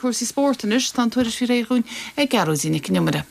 cúrsaí spóirt anois. Tá an tuairisc réidh dhúinn ag Gearóidín Nic an Iomaire.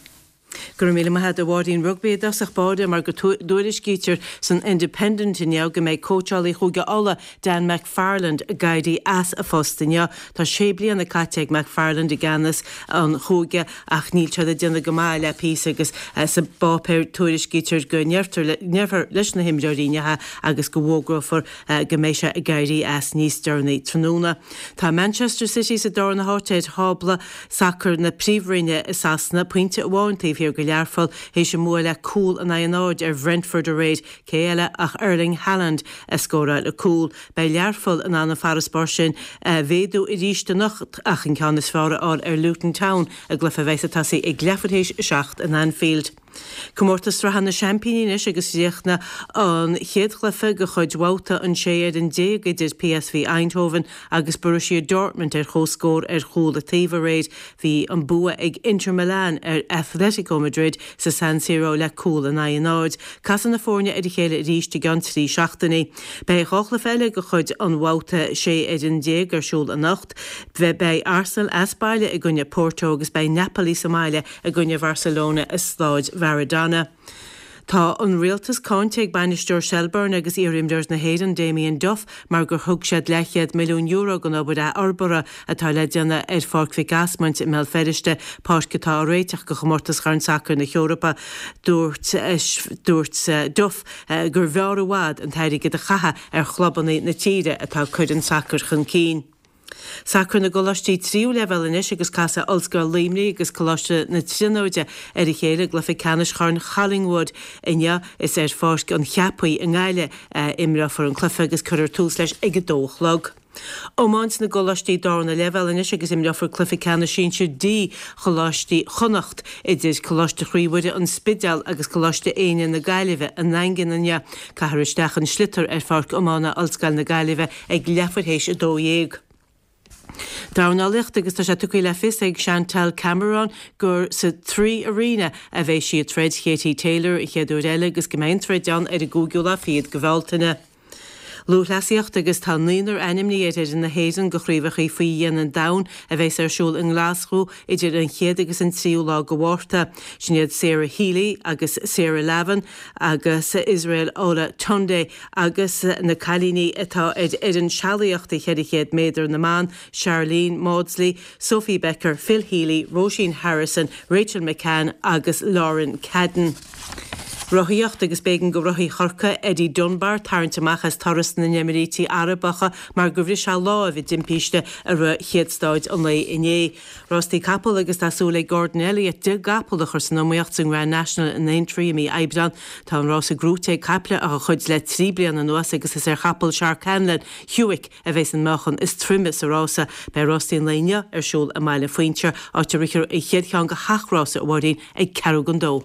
Go raibh míle maith agat a Mháirín. Rugbaí i dtosach báire mar go dtuairiscítear san Independent inniu go mbeidh cóitseálaí Chúige Uladh, Dan McFarland, ag éirí as a phost inniu. Tá sé bliana caite ag McFarland i gceannas an chúige ach níl siad ag déanamh go maith le píosa agus sa bpáipéar tuairiscítear go ndéarfar leis na himreoirí inniu agus go bhfógrófar go mbeidh sé ag éirí as níos deireanaí tráthnóna. Tá Manchester City sa darna háit ar thábla sacair na Príomhroinne i Sasana, pointe amháin taobh thiar de Learpholl, théis a mbua le cúl in aghaidh a náid ar Bhrentford aréir. Cé eile ach Erling Haaland a scóráil an cúl. Beidh Learpholl in ann an farasbarr sin a mhéadú arís anocht ach an ceann is fearr a fháil ar Luton Town i gcluiche a bheas ag tosaí ag leathuair théis a 7 in Anfield. Comórtas Sraithe na Seaimpíní anois agus chríochnaigh an chéad chluiche de chuid bhabhta an 16 fhoireann idir PSV Eindhoven agus Borussia Dortmund ar comhscór ar chúl an taobh aréir. Bhí an bua ag Inter Milan ar Athletico Madrid sa San Siro le cúl in aghaidh a náid. Casfaidh na foirne ar a chéile arís i gceann 3 seachtainí. Beidh 2 chluiche eile de chuid an bhabhta 16 fhoireann ar siúl anocht. Beidh Arsenal as baile i gcoinne Porto agus beidh Napoli sa mbaile i gcoinne Bharcelona i Stáid Mharadona. Tá an rialtas cáinte ag bainisteoir Shelbourne agus iar-imreoir na hÉireann Damien Duff mar gur thug siad leathchéad milliún euro don obair athfhorbartha atá le déanamh ar Pháirc Mhic Asmaint i mBéal Feirste, páirc atá á réiteach do chomórtas Chorn Sacair na hEorpa. Dúirt dúirt Duff gur bhfearr i bhfad an t-airgead a chaitheamh ar chlubanna na tíre atá ag cur an tsacair chun cinn. Sacar na gcoláistí tríú leibhéal anois agus casfaidh Ollscoil Luimnigh agus Coláiste na Tríonóide ar a chéile i gcluiche ceannais Chorn Collingwood inniu. Is ar Pháirc an Cheapaigh i nGaillimh a imreofar an cluiche agus cuirfear tús leis ag a dó a chlog. Iomáint na gcoláistí darna leibhéal anois agus imreofar cluiche ceannais sinsir D Choláistí Chonnacht idir Coláiste Chroí Mhuire An Spidéal agus Coláiste Éinne na Gaillimhe i nDaingean inniu. Caithfear isteach an sliotar ar Pháirc Iomána Ollscoil na Gaillimhe ag leathuair théis 12. Dornálaíocht agus tá sé tugtha le fios ag Chantelle Cameron gur sa Three Arena a bheidh sí ag troid Katie Taylor an chéad uair eile agus go mbeidh an troid ann ar an gcúigiú lá fichead de Bhealtaine. Lúthchleasaíocht agus tá naonúr ainmnithe ar fhoireann na hÉireann do Chraobhacha Faoi Dhíon an Domhain a bheas ar siúl i nGlaschú idir an chéad agus an tríú lá de Mhárta. Sin iad Sarah Healy agus Sarah Lavin agus Israel Olatunde Agus na cailíní atá ar fhoireann sealaíochta 400 méadar na mban, Sharlene Mawdsley, Sophie Becker, Phil Healy, Róisín Harrison, Rachel McCann agus Lauren Cadden. Rothaíocht agus b'éigean do rothaí Chorcaí, Eddie Dunbar, tarraingt amach as Turas na nÉimíríochtaí Arabacha mar gur bhris sé láimh i dtimpiste i rith chéad stáid an lae inné. Rástaí capall agus tá súil ag Gordon Elliott 10 gcapall a chur san iomaíocht sa nGrand National in Aintree i mí Aibreán. Tá an rása gnóite ag caiple dá chuid le 3 bliana anuas agus is ar chapall Shark Hanlon, Hewick, a bheas an meáchan is troime sa rása. Beidh rástaí an lae inniu ar siúl i mBaile Phuinseir, áit a rithfear an chéad cheann de sheacht rása, a Mháirín, ag ceathrú don dó.